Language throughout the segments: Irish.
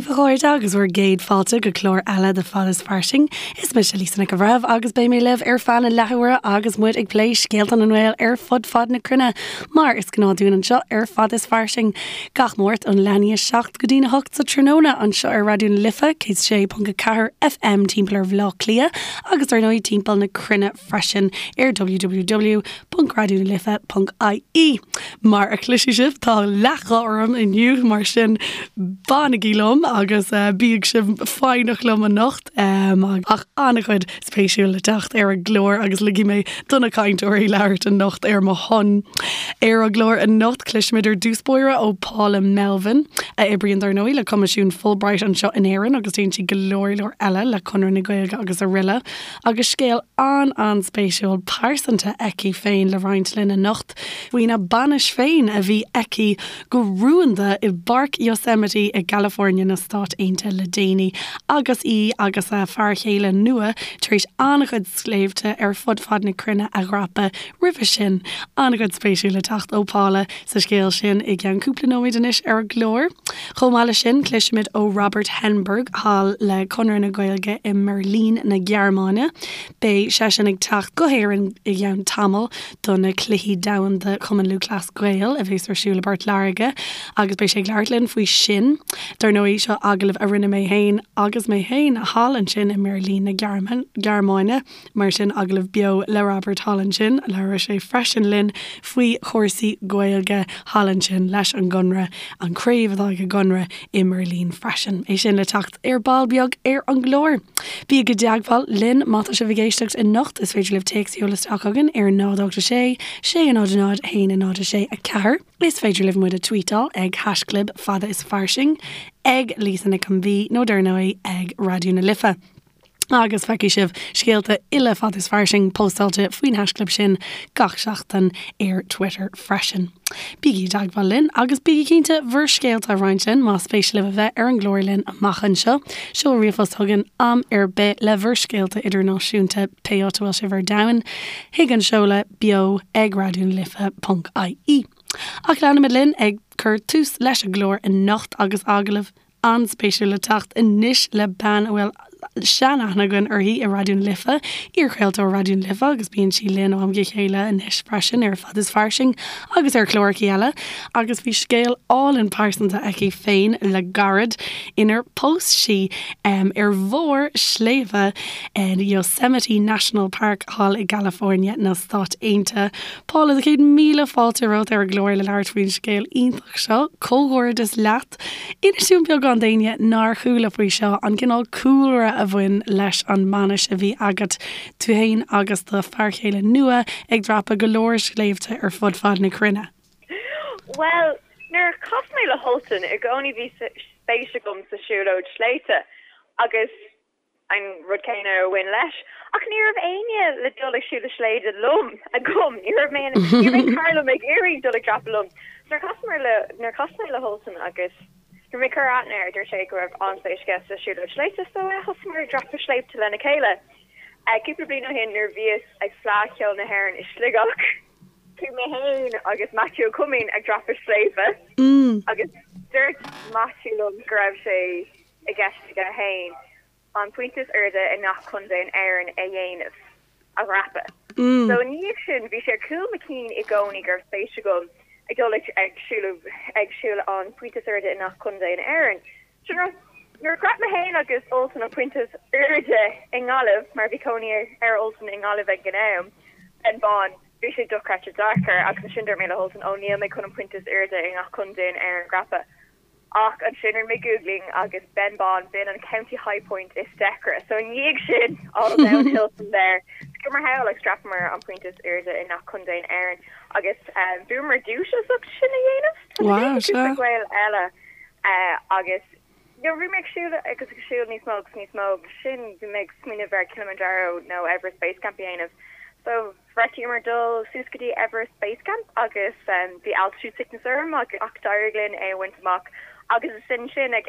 daoibh, a chairde, agus bhur gcéad fáilte go clár eile de Fad is Fairsing. Is mise Lisa Nic an Bhreithimh agus beidh mé libh ar feadh na leathuaire agus muid ag plé scéalta na nGael ar fud fad na cruinne, mar is gnáth dúinn anseo ar Fad is Fairsing. Gach Máirt ón leath i ndiaidh 7 go dtí'n 8 sa tráthnóna anseo ar Raidió na Life, 106.4 FM timpeall ar Bhaile Átha Cliath agus ar ndóigh timpeall na cruinne freisin ar www.raidionalife.ie. Mar a chloisfidh sibh, tá leathghuth orm inniu, mar sin fanaigí liom agus bíodh sibh foighneach liom anocht. Ach an-chuid spéisiúil le teacht ar an gclár agus ligfidh mé do na cainteoirí labhairt anocht ar mo shon. Ar an gclár anocht, cloisfimid ar dtús báire ó Paula Melvin, a oibríonn dar ndóigh le Coimisiún Fulbright anseo in Éirinn agus déanann sí go leor leor eile le Conradh na Gaeilge agus araile. Agus scéal an-an-spéisiúil pearsanta aici féin le roinnt linn anocht faoina bainis féin a bhí aici go rúnda i bPáirc Yosemite i gCalifornia na Stát Aontaithe le déanaí agus í agus a fear chéile nua tar éis an-chuid sléibhte ar fud fad na cruinne a dhreapadh roimhe sin. An-chuid spéisiúil le teacht ó Paula sa scéal sin i gceann cúpla nóiméad anois ar an gclár. Chomh maith leis sin, cloisfimid ó Robert Henneberg thall le Conradh na Gaeilge i mBeirlín na Gearmáine. Beidh seisean ag teacht go hÉirinn i gceann tamaill do na Cluichí Domhanda Chumann Lúthchleas Gael a bheas ar siúl i bPort Láirge agus beidh sé ag labhairt linn faoi sin. Dar ndóigh, seo agallamh a rinne mé féin agus mé féin thall ansin i mBeirlín na Gearmáine. Mar sin, agallamh beo le Robert thall ansin. Labhróidh sé freisin linn faoi chúrsaí Gaeilge thall ansin leis an gConradh, an craobh atá ag an gConradh i mBeirlín freisin. É sin le teacht ar ball beag ar an gclár. Bígí i dteagmháil linn má tá sibh ag éisteacht anocht. Is féidir libh téacs a sheoladh isteach chugainn ar 0 8 6 6 0 0 1 0 6 4. Is féidir libh muid a tweetáil ag haischlib fada is fairsing, ag Lisa Nic an B nó dar ndóigh ag Raidió na Life. Agus feicfidh sibh scéalta uile Fada is Fairsing póstáilte faoin haischlib sin gach seachtain ar Twitter freisin. Bígí i dteagmháil linn agus bígí cinnte bhur scéalta a roinnt linn más spéis libh a bheith ar an gclár linn amach anseo. Seol ríomhphost chugainn am ar bith le bhur scéalta idirnáisiúnta pé áit a bhfuil sibh ar domhan chuig an seoladh beo ag raidionalife.ie. Ach leanfaimid linn ag cur tús leis an gclár anocht agus agallamh an-spéisiúil le teacht anois le bean a bhfuil sean-aithne againn uirthi i Raidió na Life, iarchraoltóir Raidió na Life agus bíonn sí linn ó am go chéile anois freisin ar Fad is Fairsing agus ar chláracha eile agus bhí scéal álainn pearsanta aici féin le gairid inar phós sí ar bharr sléibhe in Yosemite National Park thall i gCalifornia na Stát Aontaithe. Paula, 100,000 fáilte romhat ar an gclár le labhairt faoin scéal iontach seo. Comhghairdeas leat! Inis dúinn beagán d'éinne nár chuala faoi seo, an cineál cúlra a bhain leis an mbainis a bhí agat, tú féin agus do fear chéile nua ag dreapadh go leor sléibhte ar fud fad na cruinne. Bhuel, nuair a chas mé le hUltan, i gcónaí bhí spéis agam sa siúlóid sléibhte agus an rud céanna a bhain leis. Ach ní raibh éinne le dul ag siúl sléibhte liom agam. Ní raibh mé ní raibh aon chara liom ag iarraidh dul ag dreapadh liom. Nuair a chas le nuair a chas mé le hUltan agus nuair mé ag cur aithne air, dúirt sé go raibh an-spéis aige sa siúlóid sléibhte so thosaíomar ag dreapadh sléibhte lena chéile. Cúpla bliain ó shin nuair a bhíos ag Fleadh Cheoil na hÉireann i Sligeach, chuaigh mé féin agus Matthew Ó Coimín ag dreapadh sléibhe agus dúirt Matthew liom go raibh sé i gceist aige féin an pointe is airde i ngach contae in Éirinn a dhéanamh, a dhreapadh. So i ndiaidh sin, bhí sé ar chúl mo chinn i gcónaí go raibh spéis agam ag dul ag siúl ag siúl an pointe is airde i ngach contae in Éirinn. So nuair a dhreap mé féin agus Ultan an pointe is airde i nGaillimh, mar bhí cónaí ar Ultan i nGaillimh ag an am, Benn Bán, bhí sé dochreidte deacair agus ansin dúirt mé le hUltan, ó níl mé chun an pointe is airde i ngach contae in Éirinn a dhreapadh. Ach ansin rinne mé googling agus Benn Bán, b'in an county high point is deacra. So i ndiaidh sin, all downhill from there. Chuamar thall agus dhreapamar an pointe is airde i ngach contae in Éirinn agus bhuamar duais as ucht sin a dhéanamh. Tá sé déanta ag cúpla Gael eile agus nuair a bhí mé ag siúl agus ag siúl níos mó agus níos mó agus sin bhí mé ag smaoineamh ar Kilimanjaro nó Everest Base Camp a dhéanamh. So Bheartaíomar dul suas go dtí Everest Base Camp agus bhí altitude sickness orm ach d'éirigh linn é a bhaint amach agus is ansin ag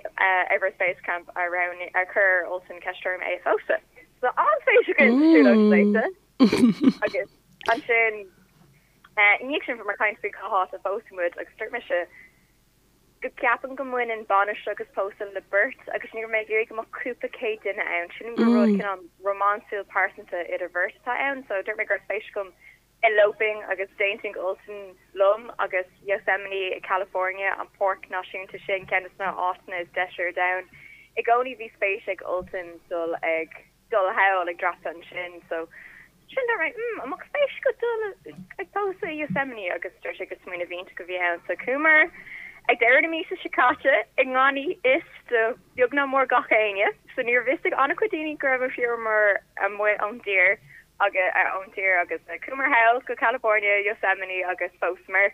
Everest Base Camp a roghnaigh, a chuir Ultan ceist orm é a phósadh. So an-spéis againn sa siúlóid sléibhte agus ansin i ndiaidh sin bhíomar ag caint faoi cá háit a phósfaidh muid agus dúirt mise. go gceapaim go mbaineann bainis agus pósadh le beirt agus ní raibh mé ag iarraidh go mbeadh cúpla céad duine ann. Sílim gur rud cineál rómánsúil pearsanta idir bheirt atá ann so dúirt mé go raibh spéis agam eloping agus d'aontaigh Ultan liom agus Yosemite i California, an páirc náisiúnta sin, ceann de na áiteanna is deise ar domhan. I gcónaí bhí spéis ag Ultan dul ag. dul thall ag dreapadh ansin so sin dúirt mé mm an mbeadh spéis agat dul ag pósadh i Yosemite agus dúirt sé gur smaoineamh iontach a bhí ann so chuamar ag deireadh na míosa seo caite i ngan fhios do beag ná mór gach éinne so ní raibh fhios ag an-chuid daoine go rabhamar amuigh ón dtír agus ón tír agus chuamar thall go California Yosemite agus phósamar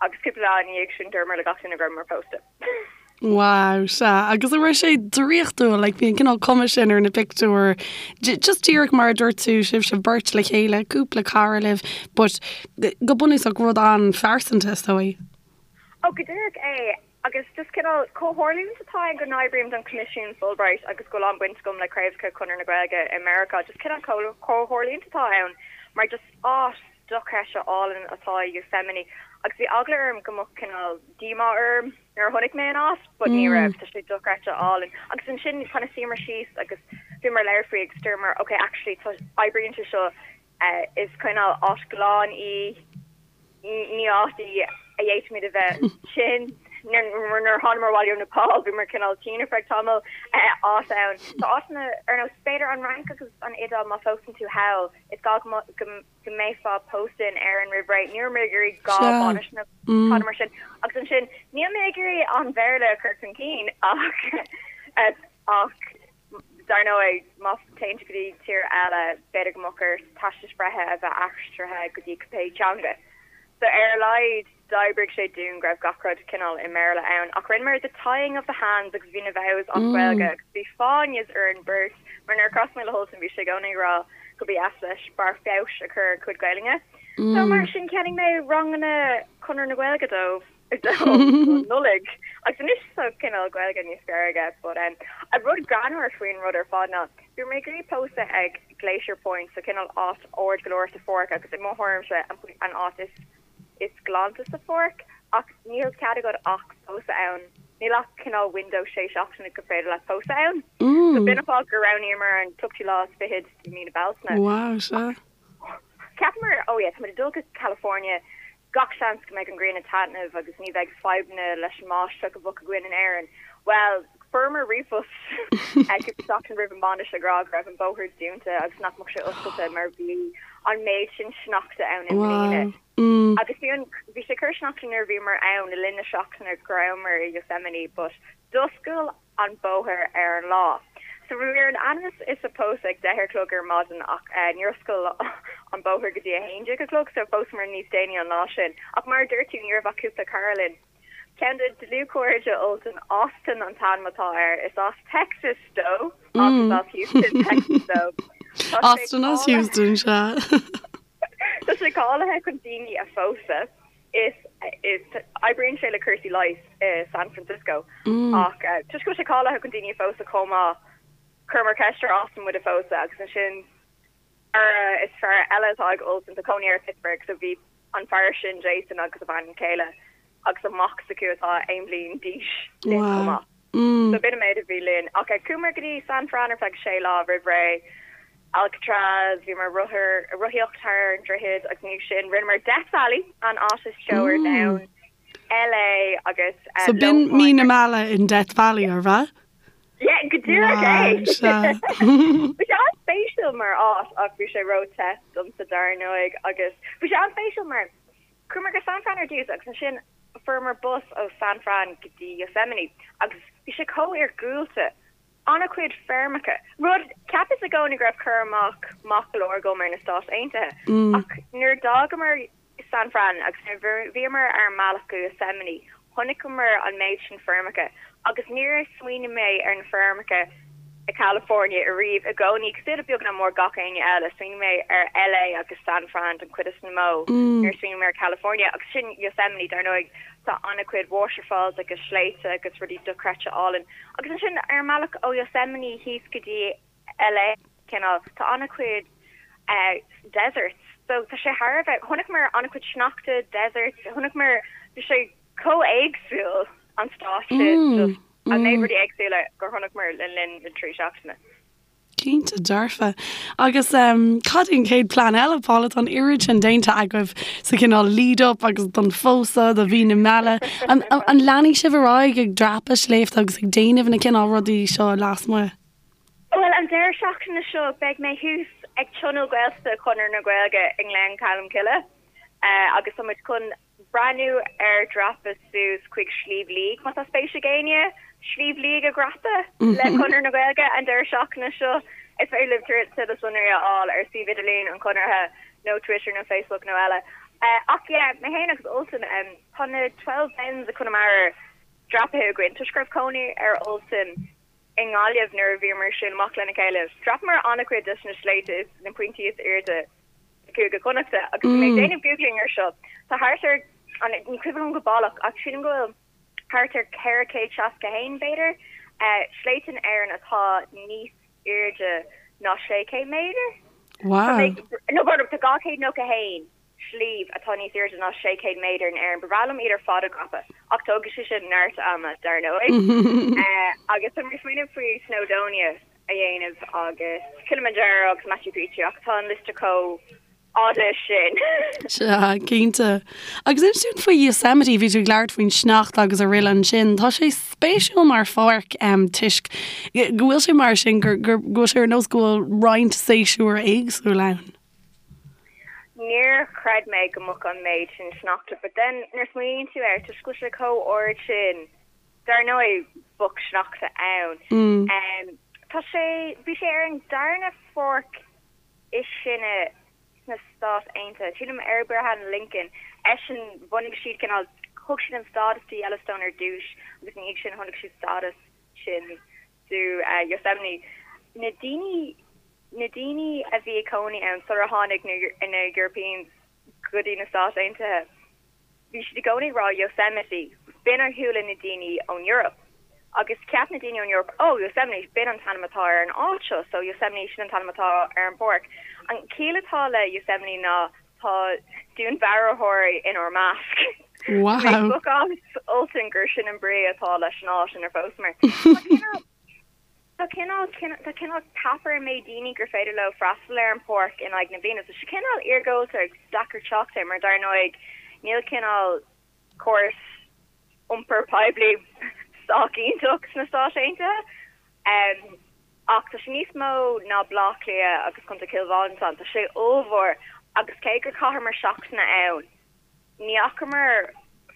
agus cúpla lá ina dhiaidh sin dúramar le gach duine go rabhamar pósta. Wow, sea. Agus an raibh sé draíochtúil, like, bhí an cineál cuma sin ar na pictiúir, just díreach mar a dúirt tú, sibhse beirt le chéile, cúpla cara libh, but go bunúsach rud an-phearsanta, is dóigh. Oh, go díreach é. Agus just cineál comhtharlúint atá ann go n-oibrím don Choimisiún Fulbright agus go bhfuil an-bhaint agam le craobhacha Chonradh na Gaeilge i Meiriceá, just cineál comhtharlúint atá ann mar just áit dochreidte álainn atá i Yosemite agus bhí eagla orm go mbeadh cineál díomá orm nuair a chonaic mé an áit but ní raibh, tá sé dochreidte álainn. Agus ansin kind of shuíomar síos agus bhíomar ag labhairt faoi agus dúramar ok actually tá, oibríonn sé seo, is cineál áit ghlan í, ní áit í a d'fhéadfaimid a bheith tinn. Nuair a thánamar abhaile ó Nepal bhíomar cineál tinn ar feadh tamaill, áit ann. Tá áiteanna ar nós b'fhéidir an Fhrainc agus an Iodáil má phósann tú thall is gá go go mbeifeá pósta in Éirinn roimh ré. Ní raibh mé ag iarraidh dhá bhainis nó tada mar sin. Agus ansin, níl mé ag iarraidh an Bhéarla a chur chun cinn ach ach dar ndóigh, má téann tú go dtí tír eile, b'fhéidir go mbeadh ort teastais bhreithe a bheith aistrithe go dtí cibé teanga. So ar a laghad, D'oibrigh sé dúinn go raibh gach rud cineál i mBéarla ann ach rinneamar the tying of the hands agus bhí na vows as Gaeilge agus bhí fáinnes orainn beirt mar nuair a chas mé le hUltan bhí sé i gcónaí ag rá go ba dheas leis barr feabhais a chur ar a chuid Gaelainne. So mar sin cheannaigh mé ranganna Chonradh na Gaeilge dóibh don Nollaig agus anois tá cineál Gaeilge níos fearr aige but um an rud greannmhar faoin rud ar fad ná bhí mé ag iarraidh pósadh ag Glacier Point so cineál áit ard go leor sa pháirc agus i mo thuairimse an áit is is glanta sa pháirc ach níl cead agat ach pósadh ann, níl ach cineál window sé seachtaine gur féidir leat pósadh ann. So b'in an fáth gur roghnaíomar an tríochadú lá is fichead de mí na Bealtaine. Wow, sea. Cheapamar, oh yeah, táimid ag dul go California, gach seans go mbeidh an ghrian ag taitneamh agus ní bheidh fadhbanna leis an mbáisteach a bheadh againn in Éirinn. Bhuel, fuaireamar ríomhphost cúpla seachtain roimh an mbainis ag rá go raibh an bóthar dúnta agus nach mbeadh sé oscailte mar bhí an méid sin sneachta ann i mbliana. Agus bhí an, bhí sé ag cur sneachta nuair a bhíomar ann le linn na seachtaine go rabhamar i Yosemite but d'oscail an bóthar ar an lá. So bhí ar an ainm is a pósadh ag 10 a chlog ar maidin ach níor oscail an bóthar go dtí 11 a chlog so phósamar níos déanaí an lá sin. Ach mar a dúirt tú ní raibh ach cúpla cara linn. Ceann de dlúthchairde Ultan, Austin an t-ainm atá air. Is as Texas dó ach is as Houston, Texas dó. Tá sé Austin as Houston, sea. Tá sé cáilithe chun daoine a phósadh. Is is oibríonn sé le cúrsaí leighis i San Francisco ach toisc go bhfuil sé cáilithe chun daoine a phósadh chomh maith, chuireamar ceist ar Austin muid a phósadh agus ansin Cara is fearr eile atá ag Ultan, tá cónaí air i Pittsburgh, so bhí an fear sin, Jason, agus a bhean chéile agus a mac s'acu atá aon bhliain d'aois linn chomh maith. So b'in an méid a bhí linn. Ach chuamar go dtí San Fran ar feadh sé lá roimh ré, Alcatraz, bhíomar ag rothar, rothaíocht thar an droichead agus ina dhiaidh sin rinneamar Death Valley, an áit is teo ar domhan, LA agus So b'in mí na meala in Death Valley, arbh ea? Yeah, go díreach é! Bhí sé an-spéisiúil mar áit ach bhí sé ró-the domsa dar ndóigh agus bhí sé an-spéisiúil mar chuamar go San Fran ar dtús agus ansin fuaireamar bus ó San Fran go dtí Yosemite agus bhí sé chomh iargúlta, an-chuid feirmeacha, rud, cheapas i gcónaí go raibh cur amach maith go leor agam ar na Stáit Aontaithe ach nuair a d'fhágamar San Fran agus nuair a bhíomar ar an mbealach go Yosemite chonaiceamar an méid sin feirmeacha agus níor smaoinigh mé ar na feirmeacha i California ariamh. I gcónaí, cosúil le beag nach mór gach éinne eile, smaoinigh mé ar LA agus San Fran den chuid is mó nuair a smaoinigh mé ar California agus sin Yosemite dar ndóigh tá an-chuid waterfalls agus sléibhte agus rudaí dochreidte álainn agus ansin ar an mbealach ó Yosemite thíos go dtí LA, cineál, tá an-chuid deserts so tá sé thar a bheith, chonaiceamar an-chuid sneachta, deserts, chonaiceamar, bhí sé chomh éagsúil. an stáitse, just an méid rudaí éagsúla gur chonaiceamar le linn na dtrí seachtaine. Cinnte dearfa. Agus cad é an chéad plean eile, Paula? Tá an oiread sin déanta agaibh sa chineál lead up agus don phósadh, do mhí na meala. An leanfaidh sibh ar aghaidh ag dreapadh sléibhte agus ag déanamh na cineál rudaí seo lasmuigh? Bhuel, an deireadh seachtaine seo beidh mé thuas ag Tionól Gaeltachta Chonradh na Gaeilge i nGleann Cholm Cille agus tá muid chun breathnú ar dhreapadh suas chuig Sliabh Liag, má tá spéis ag éinne Sliabh Liag a dhreapadh le Conradh na Gaeilge an deireadh seachtaine seo. Is féidir libh tuilleadh sonraí a fháil ar suíomh idirlín an Chonartha nó Twitter nó Facebook nó eile. Ach yeah, mé féin agus Ultan, tá na Twelve Bens i Conamara dreapaithe againn toisc go raibh cónaí ar Ultan i nGaillimh nuair a bhíomar ag siúl amach lena chéile. Dhreapamar an-chuid des na sléibhte is na pointí is airde i gCúige Chonnachta agus bhí mé ag déanamh googling ar seo. Tá thart ar, ní cuimhin liom go baileach ach sílim go bhfuil thart ar 461, b'fhéidir, sléibhte in Éirinn atá níos airde ná 600 méadar. Wow. No, tá 291. sliabh atá níos airde ná 600 méadar in Éirinn. Ba bhreá liom iad ar fad a dhreapadh, ach tógfaidh sé sin neart ama, dar ndóigh. Agus tá mé ag smaoineamh faoi Snowdonia a dhéanamh agus Kilimanjaro agus Machu Picchu ach tá an liosta chomh fhada sin. Sea, cinnte. Agus inis dúinn faoi Yosemite, bhí tú ag labhairt faoin sneachta agus araile ansin. Tá sé spéisiúil mar pháirc toisc go bhfuil sé mar sin, go bhfuil sé ar nós go bhfuil roinnt séasúr éagsúil ann. Níor chreid mé go mbeadh an méid sin sneachta but then nuair a smaoiníonn tú air, toisc go bhfuil sé chomh ard sin, dar ndóigh bheadh sneachta ann. Tá sé, bhí sé ar an darna pháirc is sine sna Stáit Aontaithe, sílim ar Abraham Lincoln, eisean, bhunaigh siad cineál, thug siad an stádas do Yellowstone ar dtús agus ina dhiaidh sin tháinig siad stádas sin do Yosemite. Na daoine Na daoine a bhí ag cónaí ann sular tháinig na Europeans go dtí na Stáit Aontaithe, bhí siad i gcónaí ag rá Yosemite, b'in a chuala na daoine ón Eoraip. Agus cheap na daoine ón Eoraip, oh, Yosemite, b'in an t-ainm atá ar an áit seo, so Yosemite, sin an t-ainm atá ar an bpáirc. An chiall atá le Yosemite ná tá dúnmharfóirí inár measc. Wow. Mé ag spochadh as Ultan gur sin an brí atá leis an áit inar phósamar. Tá cineál. Tá cineál, tá cineál cap ar an méid daoine gur féidir leo freastal ar an pháirc in aghaidh na bliana. Tá sé cineál iargúlta agus deacair teacht air mar dar ndóigh níl cineál córas iompair poiblí sách iontach sna Stáit Aontaithe. Ach tá sé níos mó ná Baile Átha Cliath agus Contae Chill Mhantáin. Tá sé ollmhór agus cé gur chaitheamar seachtain ann, Ní fhacamar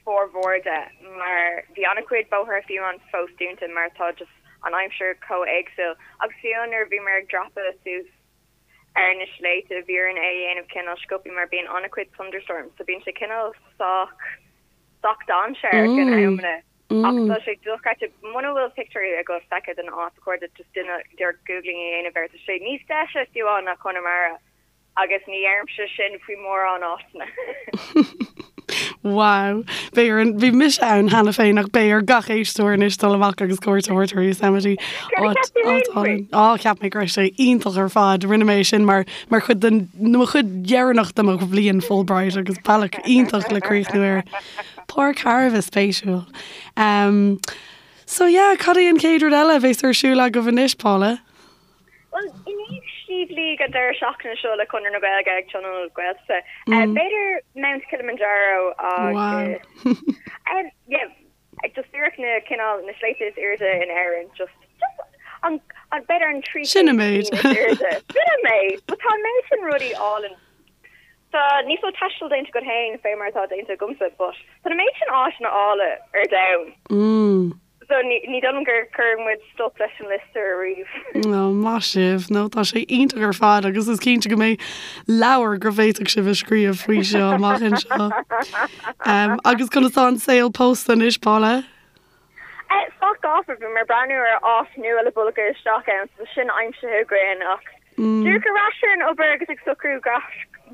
formhór de mar bhí an-chuid bóithre fiú amháin fós dúnta mar tá just an aimsir chomh éagsúil agus fiú nuair a bhíomar ag dreapadh suas ar na sléibhte bhí orainn é a dhéanamh cineál sciobtha mar bíonn an-chuid thunderstorms so bíonn sé cineál sách sách dainséarach in amanna ach tá sé dochreidte. Muna bhfuil pictiúirí agat feicthe den áit ba chóir duit just díreach googling a dhéanamh air tá sé níos deise fiú amháin ná Conamara. Agus ní deirimse sin faoi mórán áiteanna. Wow. Beidh ar an, bhí mise ann cheana féin ach beidh ar gach éisteoir anois dul amach agus cuairt a thabhairt ar Yosemite. Céard a cheap tú féin faoi? Á, cheap mé go raibh sé iontach ar fad. Rinne mé sin mar, mar chuid den, mo chuid dheireanach de mo bhliain Fulbright agus bealach iontach le críochnú air. Páirc thar a bheith spéisiúil. Um, so yeah, cad é an chéad rud eile a bheas ar siúl agaibh anois, Paula? Bhuel, i ndiaidh Sliabh Liag an deireadh seachtaine seo le Conradh na Gaeilge ag Tionól Gaeltachta, b'fhéidir Mount Kilimanjaro agus yeah, just díreach na cineál na sléibhte is airde in Éirinn, just just an an b'fhéidir an 3 Sin an méid. is airde. Sin an méid. But tá an méid sin rudaí álainn. Tá níos mó taistil déanta agat féin fé mar atá déanta agamsa, but tá an méid sin áiteanna áille ar domhan. So ní dóigh liom gur chuir muid stop leis an liosta ariamh. Ó, maith sibh. No, tá sé iontach ar fad agus is cinnte go mbeidh leabhar go bhféadfadh sibh a scríobh faoi seo amach anseo. Um, agus conas tá an saol pósta anois, Paula? Eh, sách gafa, bhí mé ag breathnú ar áit nua le bogadh isteach ann, so sin aimsithe againn ach díreach ar ais ar an obair agus ag socrú gach,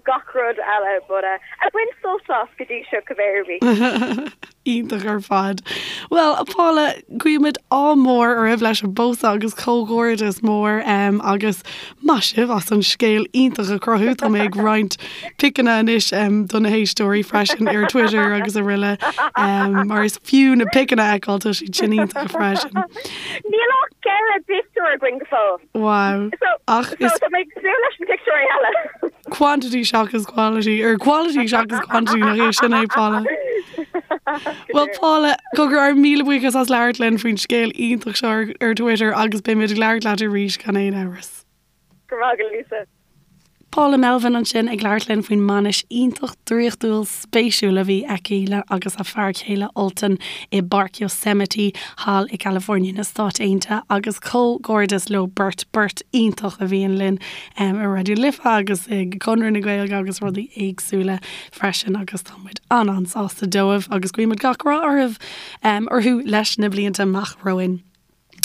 gach rud eile, but eh, ag baint sult as go dtí seo cibé ar bith. Iontach ar fad. Bhuel, a Paula, guímid ádh mór oraibh leis an bpósadh agus comhghairdeas mór agus maith sibh as an scéal iontach a chruthú. Tá mé ag roinnt piceanna anois do na héisteoirí freisin ar Twitter agus araile mar is fiú na piceanna a fheiceáil, tá siad sin iontach freisin. Níl ach 4 bpictiúr againn go fóill. Wow. Ach is. So tá mé ag súil leis na pictiúirí eile. Quantity seachas quality, or quality seachas quantity nach é sin é, Paula. Well Paula, cogar ár míle buíochas as labhairt linn faoin scéal iontach seo ar, ar Twitter agus beimid ag labhairt leat arís gan aon amhras. Go raibh maith agat, Lisa. Paula Melvin ansin ag labhairt linn faoin mbainis iontach draíochtúil spéisiúil a bhí aici le agus a fear céile Ultan i bPáirc Yosemite thall i gCalifornia na Stáit Aontaithe agus comhghairdeas leo beirt, beirt iontach a bhíonn linn i Raidió Life agus i gConradh na Gaeilge agus rudaí éagsúla freisin agus tá muid an-an-sásta dóibh agus guímid gach rath orthu orthu leis na blianta amach romhainn.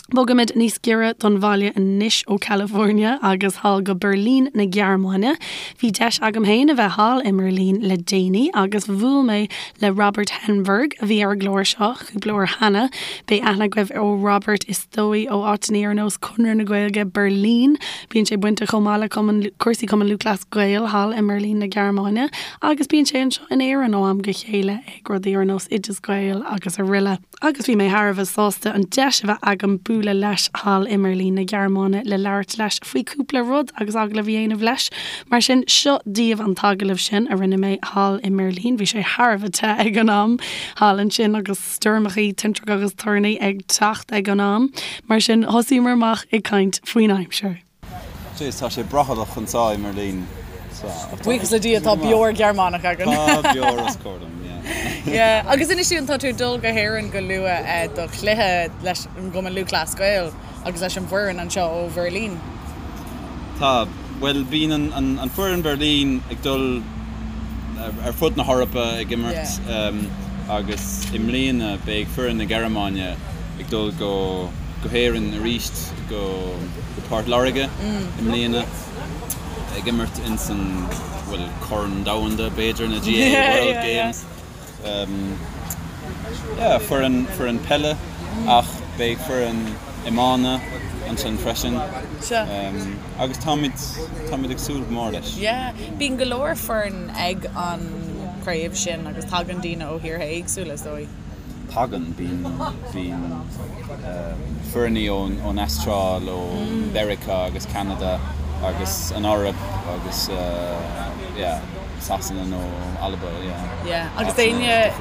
Bogaimid níos giorra don bhaile anois ó California agus thall go Beirlín na Gearmáine. Bhí deis agam féin a bheith thall i mBeirlín le déanaí agus bhuail mé le Robert Henneberg a bhí ar an gclár seo cúpla uair cheana. Beidh aithne agaibh ar Robert is dóigh ó áiteanna ar nós Conradh na Gaeilge Beirlín. Bíonn sé bainteach chomh maith le cumann cúrsaí Cumann Lúthchleas Gael thall i mBeirlín na Gearmáine agus bíonn sé anseo in Éirinn ó am go chéile ag rudaí ar nós Oideas Gael agus araile. Agus bhí mé thar a bheith sásta an deis a bheith agam bualadh leis thall i mBeirlín na Gearmáine le labhairt leis faoi cúpla rud agus agallamh a dhéanamh leis. Mar sin, seo daoibh an t-agallamh sin a rinne mé thall i mBeirlín. Bhí sé thar a bheith te ag an am thall ansin agus stoirmeachaí, tintreach agus toirní ag teacht ag an am. Mar sin, thosaíomar amach ag caint faoin aimsir. Jeez, tá sé brothallach anseo i mBeirlín. Buíochas le Dia tá beoir Ghearmánach againn. Tá beoir os comhair dom, yeah. Yeah, agus inis dúinn, tá tú ag dul go hÉirinn go luath do chluiche leis an gCumann Lúthchleas Gael agus leis an bhfoireann anseo ó Bheirlín. Tá, bhuel bíonn an foireann Berlin ag dul ar fud na hEorpa ag imirt agus i mbliana beidh foireann na Gearmáine ag dul go go hÉirinn arís go go Port Láirge i mbliana ag imirt ins an bhuel Corn Domhanda b'fhéidir na GAA World Games. Yeah foireann foireann peile ach beidh foireann iomána ansin freisin agus táimid táimid ag súil go mór leis. Yeah bíonn go leor foireann ag an chraobh sin agus tagann daoine ó thíortha éagsúla is dóigh. Tagann, bíonn, bíonn foirní ón, ón Astráil, ó Mheiriceá agus Ceanada agus an Eoraip agus yeah, Sasana nó Alba, yeah. Yeah, agus d'éinne,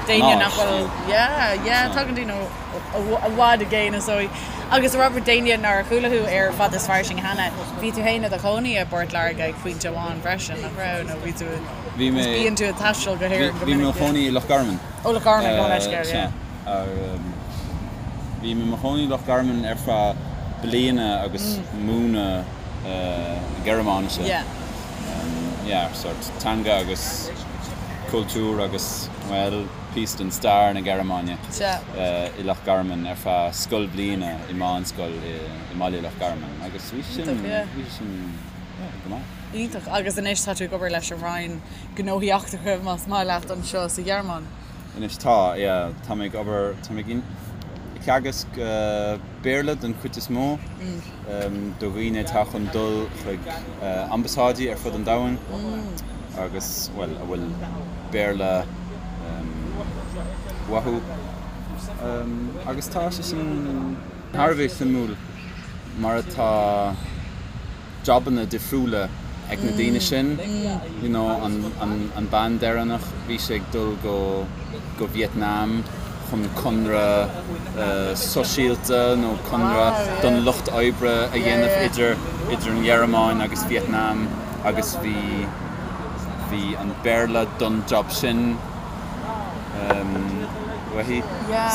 d'éinne nach bhfuil, yeah, yeah, tagann daoine ó, i bhfad i gcéin is dóigh. Agus Robert, d'éinne nár chuala thú ar Fad is Fairsing cheana, bhí tú féin i do chónaí i bPort Láirge ag pointe amháin freisin, nach raibh? Nó bhí tú, Bhí mé, bíonn tú ag taisteal go hÉirinn go minic, yeah. Bhí mé i mo chónaí i Loch Garman. Ó Loch Garman, gabh mo leithscéal, yeah. Bhí mé i mo chónaí i Loch Garman ar feadh bliana agus múineadh Gearmáinise. Yeah. Yeah, sort teanga agus cultúr agus, bhuel, píosa den stair na Gearmáine i Loch Garman ar feadh scoilbhliana i meánscoil i mbaile Loch Garman agus bhí sin, bhí sin, yeah, go maith. Iontach. Agus anois tá tú ag obair leis an Roinn Gnóthaí Eachtracha, más maith leat, anseo sa Ghearmáin. Anois tá, yeah. Tá mé ag obair, tá mé ag teagasc Béarla den chuid is mó do dhaoine atá chun dul chuig ambasáidí ar fud an domhain agus, bhuel, a bhfuil Béarla uathu. Agus tá sé sin thar a bheith suimiúil mar atá. jabanna difriúla ag na daoine sin, you know an an bean deireanach bhí sí ag dul go go Vietnam chun conradh sóisialta nó conradh don lucht oibre a dhéanamh idir idir an Ghearmáin agus Vietnam agus bhí bhí an Béarla don job sin. uaithi.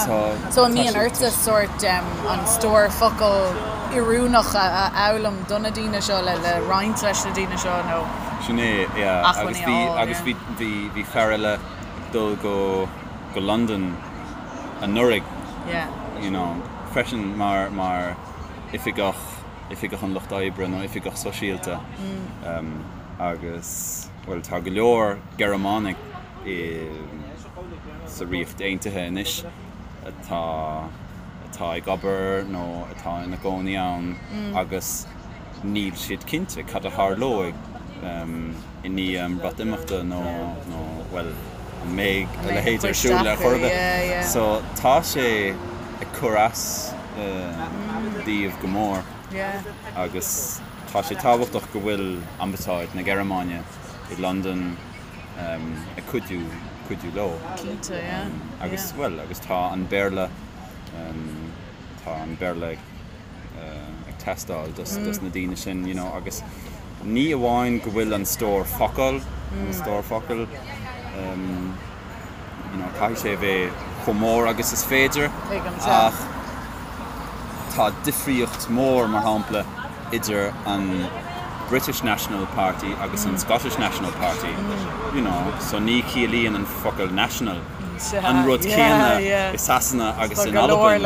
So, So an mbíonn ortsa sórt an stór focal oiriúnach a fhoghlaim do na daoine seo le le roinnt leis na daoine seo nó Sin é, yeah. Agus acmhainní a fháil, agus yeah. bhí bhí bhí fear eile ag dul go go Londain anuraidh, Yeah. you know, freisin mar mar oifigeach oifigeach an lucht oibre nó oifigeach sóisialta. Agus, bhuel, tá go leor Gearmánaigh i. sa Ríocht Aontaithe anois atá atá ag obair nó atá ina gcónaí ann agus níl siad cinnte cad a tharlóidh i ndiaidh an Bhreatimeachta nó nó bhuel an mbeidh a leithéid ar siúl ar chor ar bith. So tá sé ag cur as dóibh go mór agus tá sé tábhachtach go bhfuil Ambasáid na Gearmáine i Londain ag cuidiú cuidiú leo. Cinnte, yeah. Agus bhuel agus tá an Béarla tá an Béarla ag ag teastáil dos dos na daoine sin you know agus ní amháin go bhfuil an stór focal an stór focal you know caithfidh sé a bheith chomh mór agus is féidir ach tá difríocht mór mar shampla idir an British National Party agus an Scottish National Party you know so ní chiallaíonn an focal national an rud céanna i Sasana agus in Albain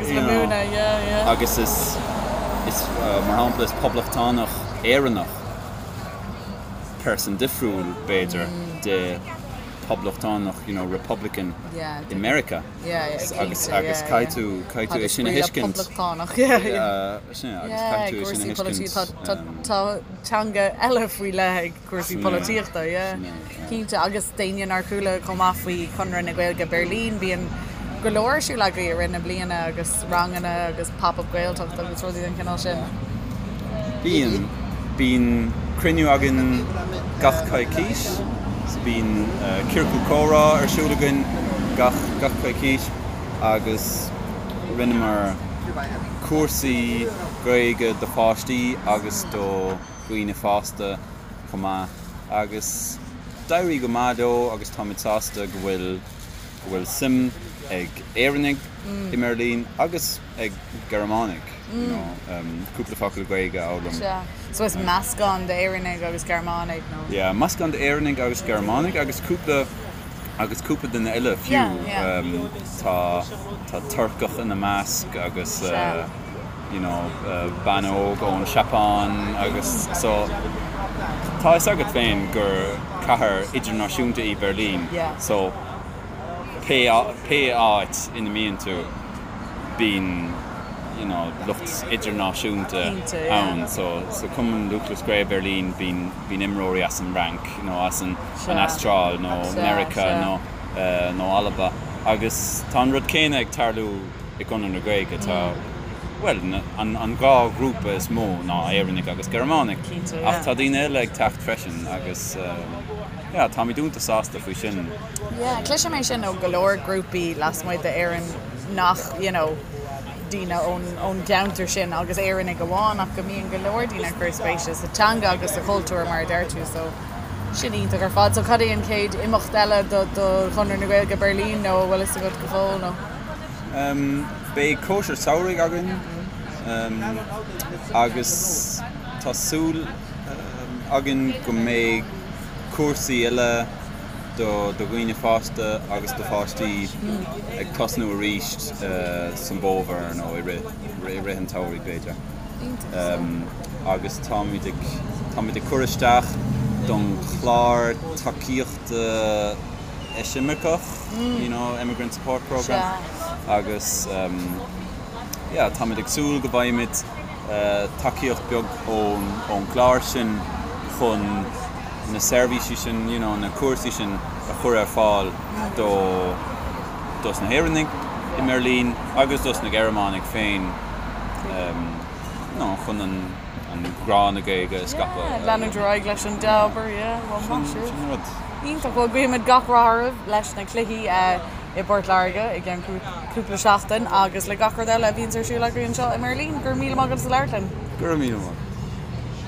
you know agus is is mar shampla is poblachtánach Éireannach person difriúil b'fhéidir de poblachtánach you know republican i Meiriceá agus agus caithfidh tú caithfidh tú é sin a thuiscint sin agus caithfidh tú é sin a thuiscint. Tá teanga eile faoi leith ag cúrsaí polaitíochta yeah cinnte agus d'éinne nár chuala chomh maith faoi Chonradh na Gaeilge Beirlín bíonn go leor ar siúl agaibh i rith na bliana agus ranganna agus pop-up Gaeltacht agus rudaí den chineál sin. Bíonn. Bíonn cruinniú againn gach coicís. So bíonn ciorcal comhrá ar siúl againn gach gach coicís agus rinneamar cúrsaí Gaeilge do pháistí agus do dhaoine fásta chomh maith agus d'éirigh go maith leo agus táimid sásta go bhfuil go bhfuil suim ag Éireannaigh i mBeirlín agus ag Gearmánaigh you know cúpla focal Gaeilge a fhoghlaim. Sea. So is meascán d'Éireannaigh agus Gearmánaigh nó? Yeah, meascán d'Éireannaigh agus Gearmánaigh agus cúpla agus cúpla duine eile fiú. Yeah, yeah. Tá tá Turcach ina measc agus Sea. you know bean óg ón Seapáin agus so tá fhios agat féin gur cathair idirnáisiúnta í Beirlín Yeah. so pé pé áit ina mbíonn tú bíonn you know lucht idirnáisiúnta Cinnte, yeah. ann so sa Cumann Lúthchleas Gael Beirlín bíonn bíonn imreoirí as an Fhrainc nó as an an Sea. Astráil nó Sea, Meiriceá sea. nó nó Alba agus tá an rud céanna ag tarlú i gConradh na Gaeilge. Tá, bhuel, an an dhá ghrúpa is mó ná Éireannaigh agus Gearmánaigh. Cinnte, yeah. Ach tá daoine eile ag teacht freisin agus yeah, táimid iontach sásta faoi sin. Yeah, cloisim é sin ó go leor grúpaí lasmuigh d'Éirinn nach, you know, daoine ón ón gceantar sin agus Éireannaigh amháin ach go mbíonn go leor daoine ag cur spéise sa teanga agus sa chultúr mar a deir tú so sin iontach ar fad. So cad é an chéad imeacht eile do do Chonradh na Gaeilge Beirlín nó an bhfuil fhios agat go fóill nó? Beidh cóisir samhraidh againn agus tá súil againn go mbeidh cúrsaí eile do dhaoine fásta agus do pháistí ag tosnú arís san bhfómhar nó i rith an tsamhraidh b'fhéidir. Agus táimid ag táimid ag cur isteach don chlár tacaíochta eisimirceach, you know, Emigrant Support Programme agus yeah táimid ag súil go bhfaighimid tacaíocht beag ón ón gclár sin chun na seirbhísí sin, you know, na cúrsaí sin a chur ar fáil do dos na hÉireannaigh i mBeirlín agus dos na Gearmánaigh féin you know, chun an an grá na Gaeilge a scaipeadh. Yeah, leanúint ar aghaidh leis an dea-obair, yeah, well maith Sin sibh. sin an rud. Iontach, bhuel guímid gach rath oraibh leis na cluichí i bPort Láirge i gceann cúpla seachtain agus le gach rud eile a bhíonns ar siúl agaibh anseo i mBeirlín. Go raibh míle maith agat as labhairt linn. Go raibh míle maith.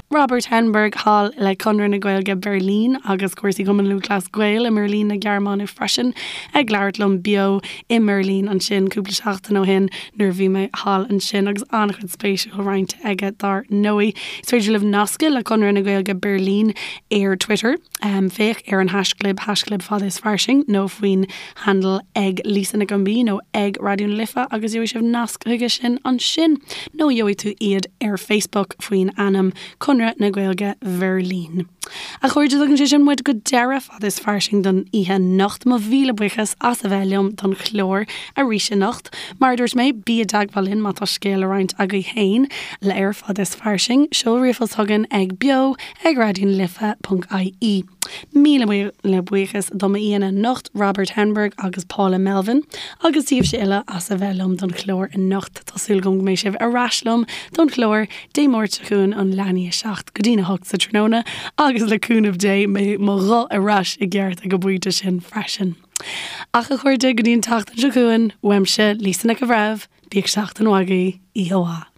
Robert Henberg thall le Conradh na Gaeilge Beirlín agus cúrsaí Chumann Lúthchleas Gael i mBeirlín na Gearmáine freisin ag labhairt liom beo i mBeirlín ansin cúpla seachtain ó shin nuair a bhí mé thall ansin agus an-chuid spéisiúil roinnte aige dar ndóigh. Is féidir libh nascadh le Conradh na Gaeilge Beirlín ar Twitter. Féach ar an haischlib, haischlib fada is fairsing, nó faoin handle ag Lisa Nic an B nó ag Raidió na Life agus gheobhaidh sibh nasc chuige sin ansin. Nó gheobhaidh tú iad ar Facebook faoin ainm Conradh. Chonradh na Gaeilge Bheirlín. A chairde, tugann sé sin muid go deireadh Fad is Fairsing don oíche anocht. Mo mhíle buíochas as a bheith liom don chlár arís anocht. Mar a dúirt mé, bí i dteagmháil linn má tá scéal le roinnt agaibh féin le ar Fad is Fairsing. Seol ríomhphost chugainn ag beo ag raidionalife.ie. Míle míle buíochas do m'aíonna anocht, Robert Henberg agus Paula Melvin, agus daoibhse uile as a bheith liom don chlár anocht. Tá súil agam go mbeidh sibh ar ais liom don chlár Dé Máirt seo chugainn ón leath i ndiaidh 7 go dtí'n 8 sa tráthnóna agus le cúnamh Dé beidh mo ghuth ar ais i gceart ag an bpointe sin freisin. Ach a chairde, go dtí an tseachtain seo chugainn, uaimse, Lisa Nic an Bhreithimh, bíodh seachtain mhaith agaibh, oíche mhaith.